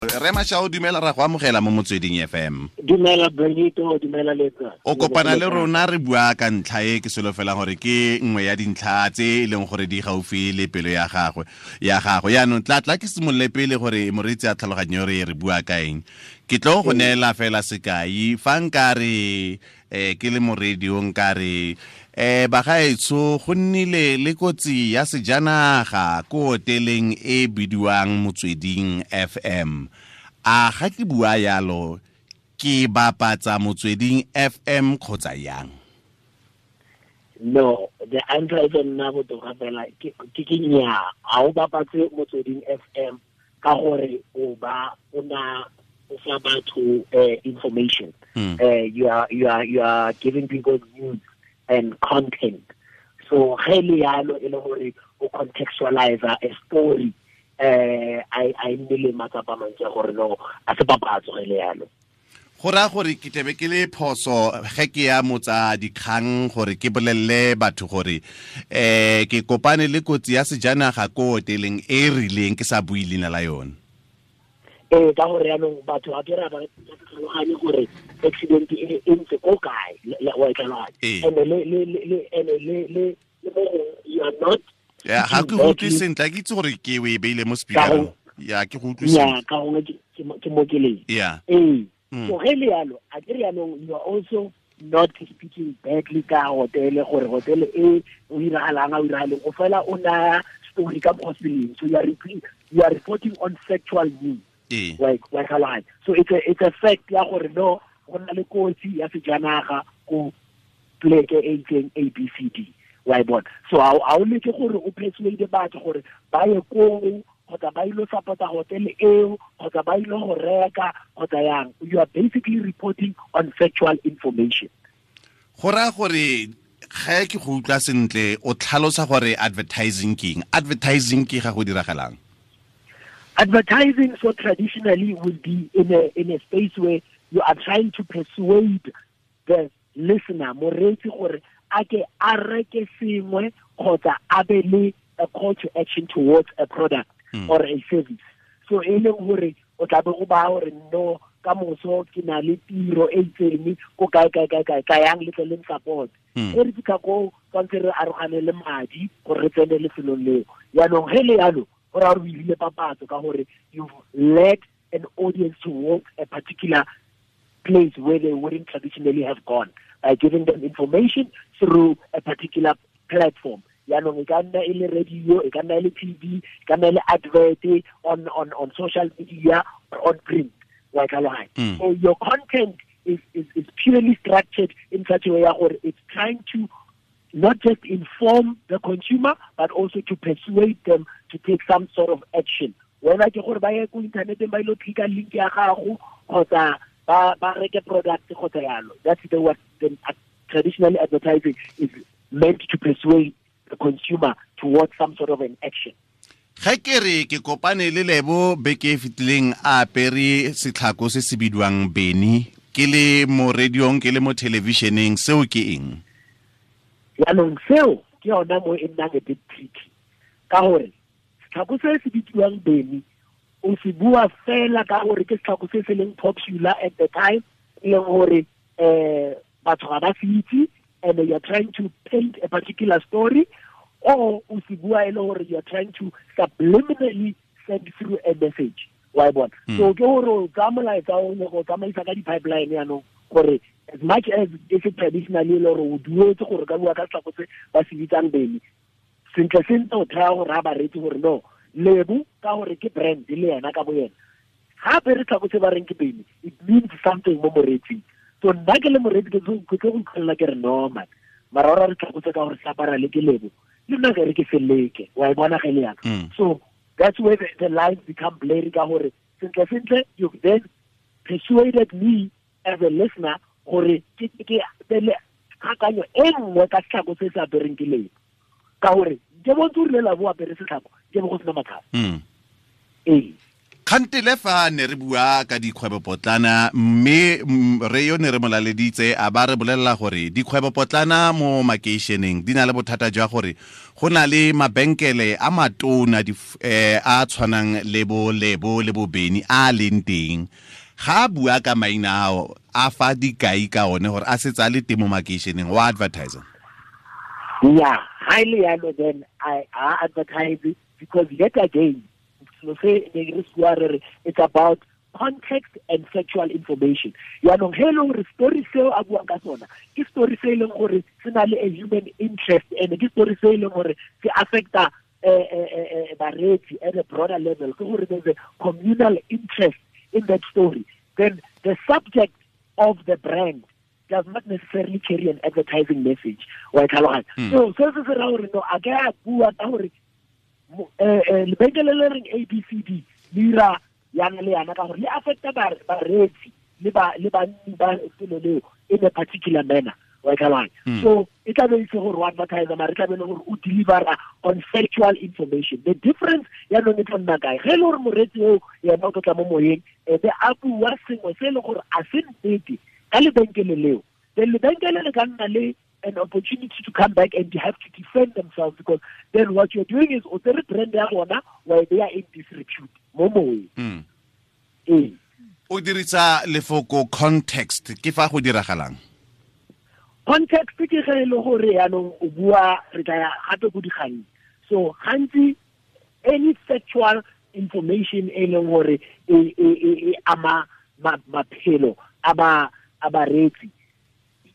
Re Mashao, dumela, ra go amogela mo Motsweding FM. Dumela Benito, dumela Letsa. O kopana le rona re bua ka ntlha e ke solofelang gore ke nngwe ya dintlha tse e leng gore di gaufi le pelo ya gagwe ya gago. Yaanong tla ke simolole pele gore moreetsi a tlhaloganye gore re bua ka eng. Ke tlo go neela fela sekai fa nka re ke le mo radiong ka re bagaetsho go nnile le kotsi ya sejanaga ko hoteleng e bidiwang Motsweding FM. A ga ke bua yalo ke bapatsa Motsweding FM kgotsa yang? No, the answer is nna botoka fela ke ke nya a o bapatse Motsweding FM ka gore o ba o na o fa batho information. You are giving people news and content. So ge le yalo e le gore o contextualize a story, I nne le matsapa mantsi a gore no a se papatso ge le yalo. Go raya gore ke tebe ke le phoso ge ke ya motsa dikgang gore ke bolelele batho gore ke kopane le kotsi ya sejanaga ko hoteleng e rileng ke sa bue leina la yone. Ka gore yaanong batho ga ke ra ba tlhaloganye gore accident e ntse ko kae, wa e tlhaloganya. And le mo you are not. Ya ga ke go utlwe sentle, ke itse gore ke o e beile mo speakerong. Ya ke go utlwe sentle. Ya ka gongwe ke mo ke leng. Ya. So ge le yalo, a ke re yaanong you are also not speaking badly ka hotele gore hotele e o iragalang a o iragaleng, o fela o naya story ka mokgwa o se leng. So you are reporting on factual news. Like so it's a fact ya gore no go na le kotsi ya sejanaga ko pleke e itseng A B C D, wa e bona. So a o leke gore o persuade batho gore ba ye koo kgotsa ba ile support-a hotel eo kgotsa ba ile go reka kgotsa yang. You are basically reporting on factual information. Go raya gore ge ke go utlwa sentle o tlhalosa gore advertising ke eng. Advertising ke ga go diragalang? Advertising so traditionally will be in a space where you are trying to persuade the listener, moreetsi, gore a ke a reke sengwe kgotsa a be le a call to action towards a product or a service. So e leng gore o tla be o ba gore no ka moso ke na le tiro e itseng ko kae kae kae kae ka yang le tle le support. E re fitlha ko tshwanetse re arogane le madi gore re tsene lefelong leo. Yaanong ge le yalo go raya gore o irile papatso ka gore you've led an audience towards a particular place where they wouldn't traditionally have gone by giving them information through a particular platform. Yaanong e ka nna e le radio, e ka nna e le TV, e ka nna e le advert on social media or on print. Wa tlhaloganya? So your content is purely structured in such a way gore it's trying to not just inform the consumer, but also to persuade them to take some sort of action. Whether ke gore ba ye ko inthaneteng ba ile click-a link ya gago kgotsa ba reke product kgotsa yalo. That's the what the traditionally advertising is meant to persuade the consumer towards some sort of an action. Ge ke re ke kopane le Lebo beke e fetileng a apere setlhako se se bidiwang Beni, ke le mo radiong, ke le mo televisioneng, seo ke eng? Yaanong seo ke yona mo e nnang a bit tricky ka gore setlhako se se bidiwang Beni o se bua fela ka gore ke setlhako se se leng popular at the time, e leng gore batho ga ba se itse, and you are trying to paint a particular story, or o se bua e le gore you are trying to subliminally send through a message. Wa e bona? So ke gore o tsaya molaetsa o nyaka o tsamaisa ka di-pipeline yaanong gore as much as e se traditionally e le gore o duetse gore ka bua ka setlhako se ba se bitsang Beni, sentle sentle o thaya gore a bareetsi gore no Lebo ka gore ke brand le yena ka bo yena gape re tlhako se ba reng ke Beni, it means something mo moreetsing. So nna ke le moreetsi ke tlo go utlwelela ke re no man, mara ora re tlhako se ka gore se apara le ke Lebo, le nna ke re ke seleke, wa e bona ge le yana. So that's where the lines become blurry ka gore sentle sentle you then persuaded me as a listener gore ke le kakanyo e nngwe ka setlhako se se apereng ke Lebo, ka gore ke bontse o rile la bo apere setlhako ke bo go sena mathata. Ee. Kgantele fa ne re bua ka dikgwebopotlana, mme re yo ne re molaleditse a ba re bolelela gore dikgwebopotlana mo makeišeneng di na le bothata jwa gore go na le mabenkele a matona a tshwanang le bo Lebo le bo Beni a leng teng. Ga a bua ka maina ao, a fa dikai ka one gore a setse a le teng mo makeišeneng, wa advertiser. Yeah, ga e le yalo, then I advertise, because yet again, it's about context and factual information. Yaanong he e leng gore story seo a buang ka sona ke story se e leng gore se na le a human interest, and ke story se e leng gore se affecta bareetsi at a broader level, ke gore there's a communal interest in that story, then the subject of the brand does not necessarily carry an advertising message. Wa tlhaloganya? So se se raya gore no, a ke a bua ka gore lebenkele le reng ABCD le ira yana le yana ka gore le affecta bareetsi le banni ba lefelo leo in a particular manner. Wa tlhaloganya? So e tla be itse gore o advertise, mare e tla be le gore o delivera on factual information. The difference yaanong e tla nna kae? Ge e le gore moreetsi o yena o tlo tla mo moyeng ebe a bua sengwe se e leng gore a se nnete ka lebenkele leo, then lebenkele le ka nna le an opportunity to come back and they have to defend themselves, because then what you're doing is o tsere brand ya bona wa e beya in disrepute mo moyeng. Ee. O dirisa lefoko context, ke fa go diragalang? Context ke ge e le gore yaanong o bua, re tla ya gape ko dikgang. So gantsi any factual information e leng gore e ama maphelo a bareetsi,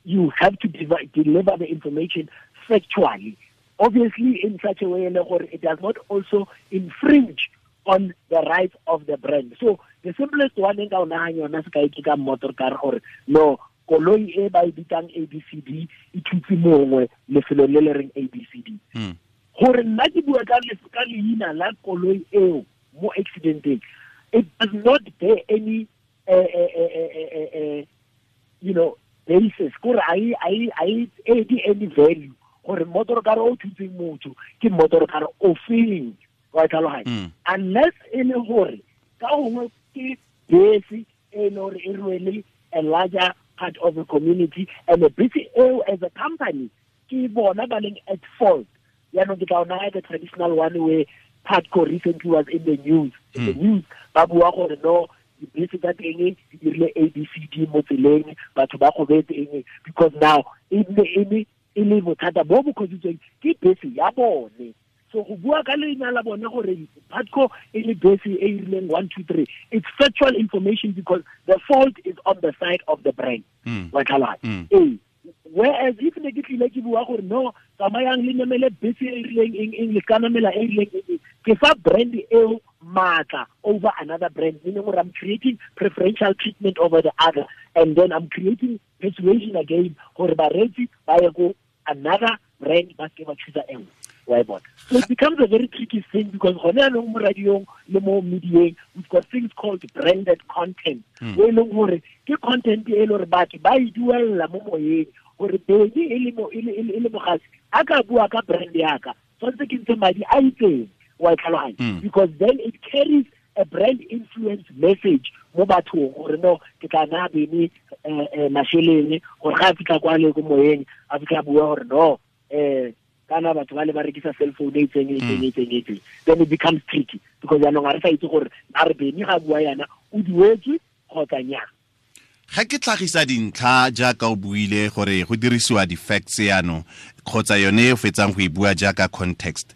you have to deliver the information factually, obviously in such a way it does not also infringe on the rights of the brand. So the simplest one nka o naganya yona sekai ke ka motor car, gore no, koloi e ba e bitsang ABCD e thutse mongwe lefelong le le reng ABCD. Gore nna ke bua ka leina la koloi eo mo accidenteng, it does not bear any you know, basis, gore a e add any value gore motor car o thutseng motho ke motor car o feng, wa tlhaloganya? Unless e le gore ka gongwe ke bese e le gore e rwele a larger part of the community, and the bese eo as a company ke bona ba leng at fault. Yaanong ke tla o naya the traditional one where Putco recently was in the news. In the news, ba bua gore no, dibese tsa teng di dirile ABCD mo tseleng, batho ba gobetse eng, because now e ne e le bothata bo bo kgoditsweng ke bese ya bone. So go bua ka leina la bone gore Putco e le bese e e rileng 1 2 3, it's factual information because the fault is on the side of the brand. Wa tlhaloganya? Ee. Whereas if ne ke tlile ke bua gore no, tsamayang le namele bese e rileng eng eng, le ka namela e rileng eng, ke fa brand eo maatla over another brand, meaning gore I'm creating preferential treatment over the other, and then I'm creating persuasion again gore bareetsi ba ye ko another brand, ba seke ba choose e nngwe. Wa e bona? So it becomes a very tricky thing, because gone yaanong mo radiong le mo medieng we've got things called branded content, o e leng gore ke content e le gore batho ba e duelela mo moyeng gore Beni e le mogasi a ka bua ka brand yaka, tshwanetse ke ntshe madi a itseng, wa e tlhaloganya? Because then it carries a brand influence message mo bathong gore no, ke tla naya Beni masheleng gore ga a fitlha kwa le ko moyeng a fitlha bua gore no, kana batho ba le ba rekisa cell phone e itseng e itseng e itseng e itseng, then it becomes tricky because yaanong ga re sa itse gore a re Beni ga bua yana o duetswe kgotsa nnyaa. Ga ke tlhagisa dintlha jaaka o buile gore go dirisiwa di-facts yaanong kgotsa yone e o fetsang go e bua jaaka context,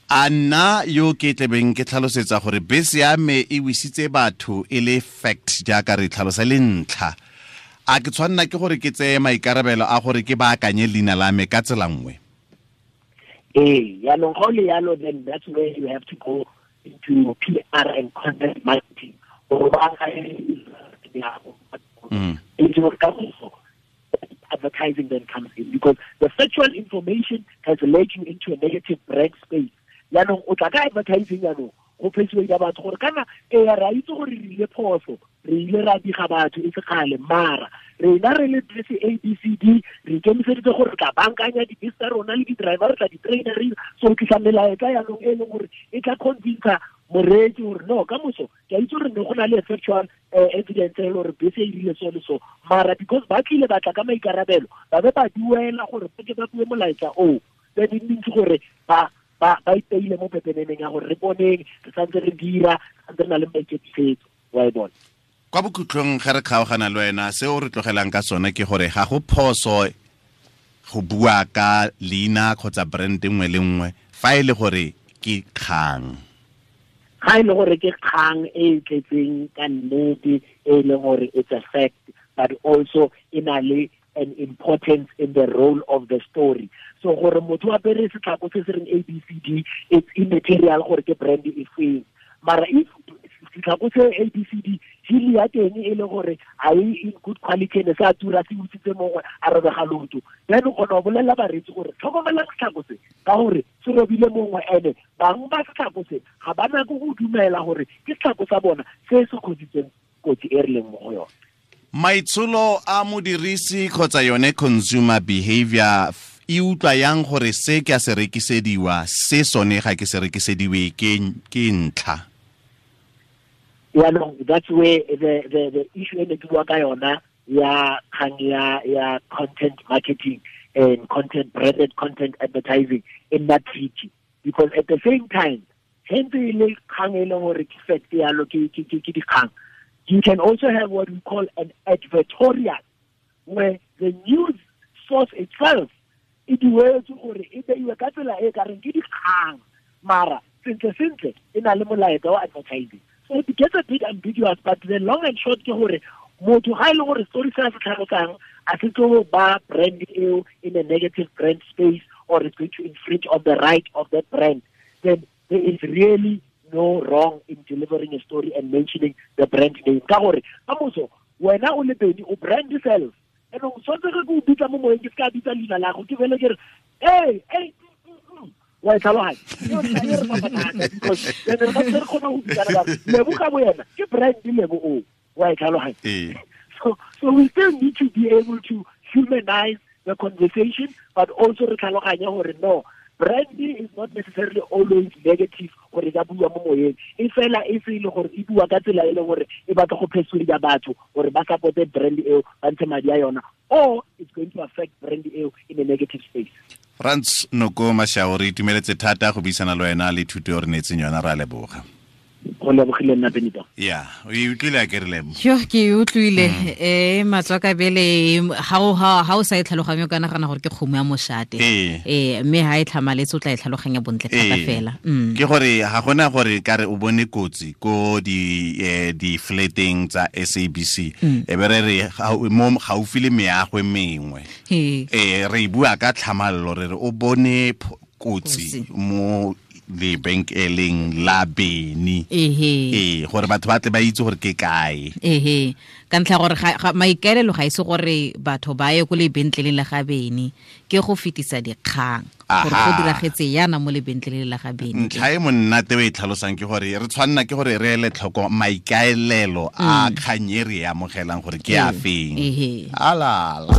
a nna yo ke tlebeng ke tlhalosetsa gore bese ya me e wisitse batho e le fact jaaka re tlhalosa le ntlha, a ke tshwanna ke gore ke tseye maikarabelo a gore ke baakanye leina la me ka tsela nngwe? Ee, yaanong ga o le yalo, then that's where you have to go into PR and content marketing gore ba akanye advertising then comes in, because the factual information has led you into a negative brand space. Yaanong o tla ka advertising yaanong go persuade batho gore kana ee, re a itse gore re ile phoso, re ile ra diga batho e se kgale, mara rena re le bese ABCD re ikemiseditse gore re tla bankanya dibese tsa rona le di-driver, re tla di-trainer, so o tlisa melaetsa yaanong e leng gore e tla convince moreetsi gore no ka moso ke a itse gore ne go na le factual evidence e le gore bese e rile so le so, mara because ba tlile ba tla ka maikarabelo ba be ba duela gore ba ke ba bue molaetsa oo, then it means gore ba ipeile mo pepeneneng ya gore re boneng re santse re dira, santse re na le maikemisetso, wa e bona. Kwa bokhutlong ge re kgaogana le wena, seo re tlogelang ka sone ke gore ga go phoso go bua ka leina kgotsa brand nngwe le nngwe fa e le gore ke kgang. Ga e le gore ke kgang e e tletseng ka nnete, e leng gore it's a fact, but also e na le an importance in the role of the story. So gore motho a apere setlhako se se reng ABCD, it's immaterial gore ke brand e feng. Mara if setlhako se ABCD heel ya teng e le gore a e in good quality, ne sa tura se utsitse mongwe a robega leoto, then o kgona go bolelela bareetsi gore tlhokomelang setlhako se ka gore se robile mongwe, ene bang ba setlhako se ga ba nako go dumela gore ke setlhako sa bona se se kgotsitseng kotsi e re leng mo go yone. Maitsholo a modirisi kgotsa yone consumer behavior e utlwa yang gore se ke a se rekisediwa, se sone ga ke se rekisediwe ke ntlha. Yaanong that's where the issue e ne ke bua ka yona ya kgang ya content marketing and content branded content advertising e nna tricky, because at the same time hentse e le kgang e leng gore ke fact yalo ke dikgang. You can also have what we call an advertorial, where the news source itself e duetse gore e beiwe ka tsela e ka reng ke dikgang, mara sentle sentle e na le molaetsa wa advertising. So it gets a bit ambiguous, but the long and short ke gore motho ga e le gore story se a se tlhalosang a se tlo ba brand eo in a negative brand space or it's going to infringe on the right of that brand, then there is really no wrong in delivering a story and mentioning the brand name. Ka gore ka moso wena o le Beni o brand yourself, and o tshwanetse ge ke o bitsa mo moyeng ke se ka bitsa leina la go, ke fele ke re hey wa e tlhaloganya, because then re ka re kgona go bitsana ba Lebo ka bo yena ke brand Lebo o, wa e tlhaloganya. So we still need to be able to humanize the conversation, but also re tlhaloganye gore no, branding is not necessarily always negative gore e ka bua mo moyeng, e fela e se le gore e bua ka tsela e leng gore e batla go persuade batho gore ba supporte brand eo, ba ntshe madi a yona, or it's going to affect brand eo in a negative space. Frans Noko Mashao, re itumeletse thata go buisana le wena le thuto e re neetseng yona, ra leboga. Go lebogile nna Benito. Yeah, o e utlwile a ke re lebo. Yo ke e utlwile matswaka bele ha o sa e tlhaloganye o ka nagana gore ke kgomo ya moshate. Mme ha e tlhamaletse o tla e tlhaloganya bontle thata fela. Ke gore ha gona gore ka re o bone kotsi ko di flateng tsa SABC. E be re re mo gaufi le meago e mengwe. Re bua ka tlhamallo re re o bone kotsi mo lebenkeleng la Beni. Gore batho ba tle ba itse gore ke kae. Ka ntlha gore maikaelelo ga ise gore batho ba ye ko lebentleleng la ga Beni, ke go fetisa dikgang gore go diragetse yana mo lebentleleng la ga Beni. Ntlha e monnate o e tlhalosang ke gore re tshwanna ke gore re ele tlhoko maikaelelo a kgang e re e amogelang gore ke a feng. Alala.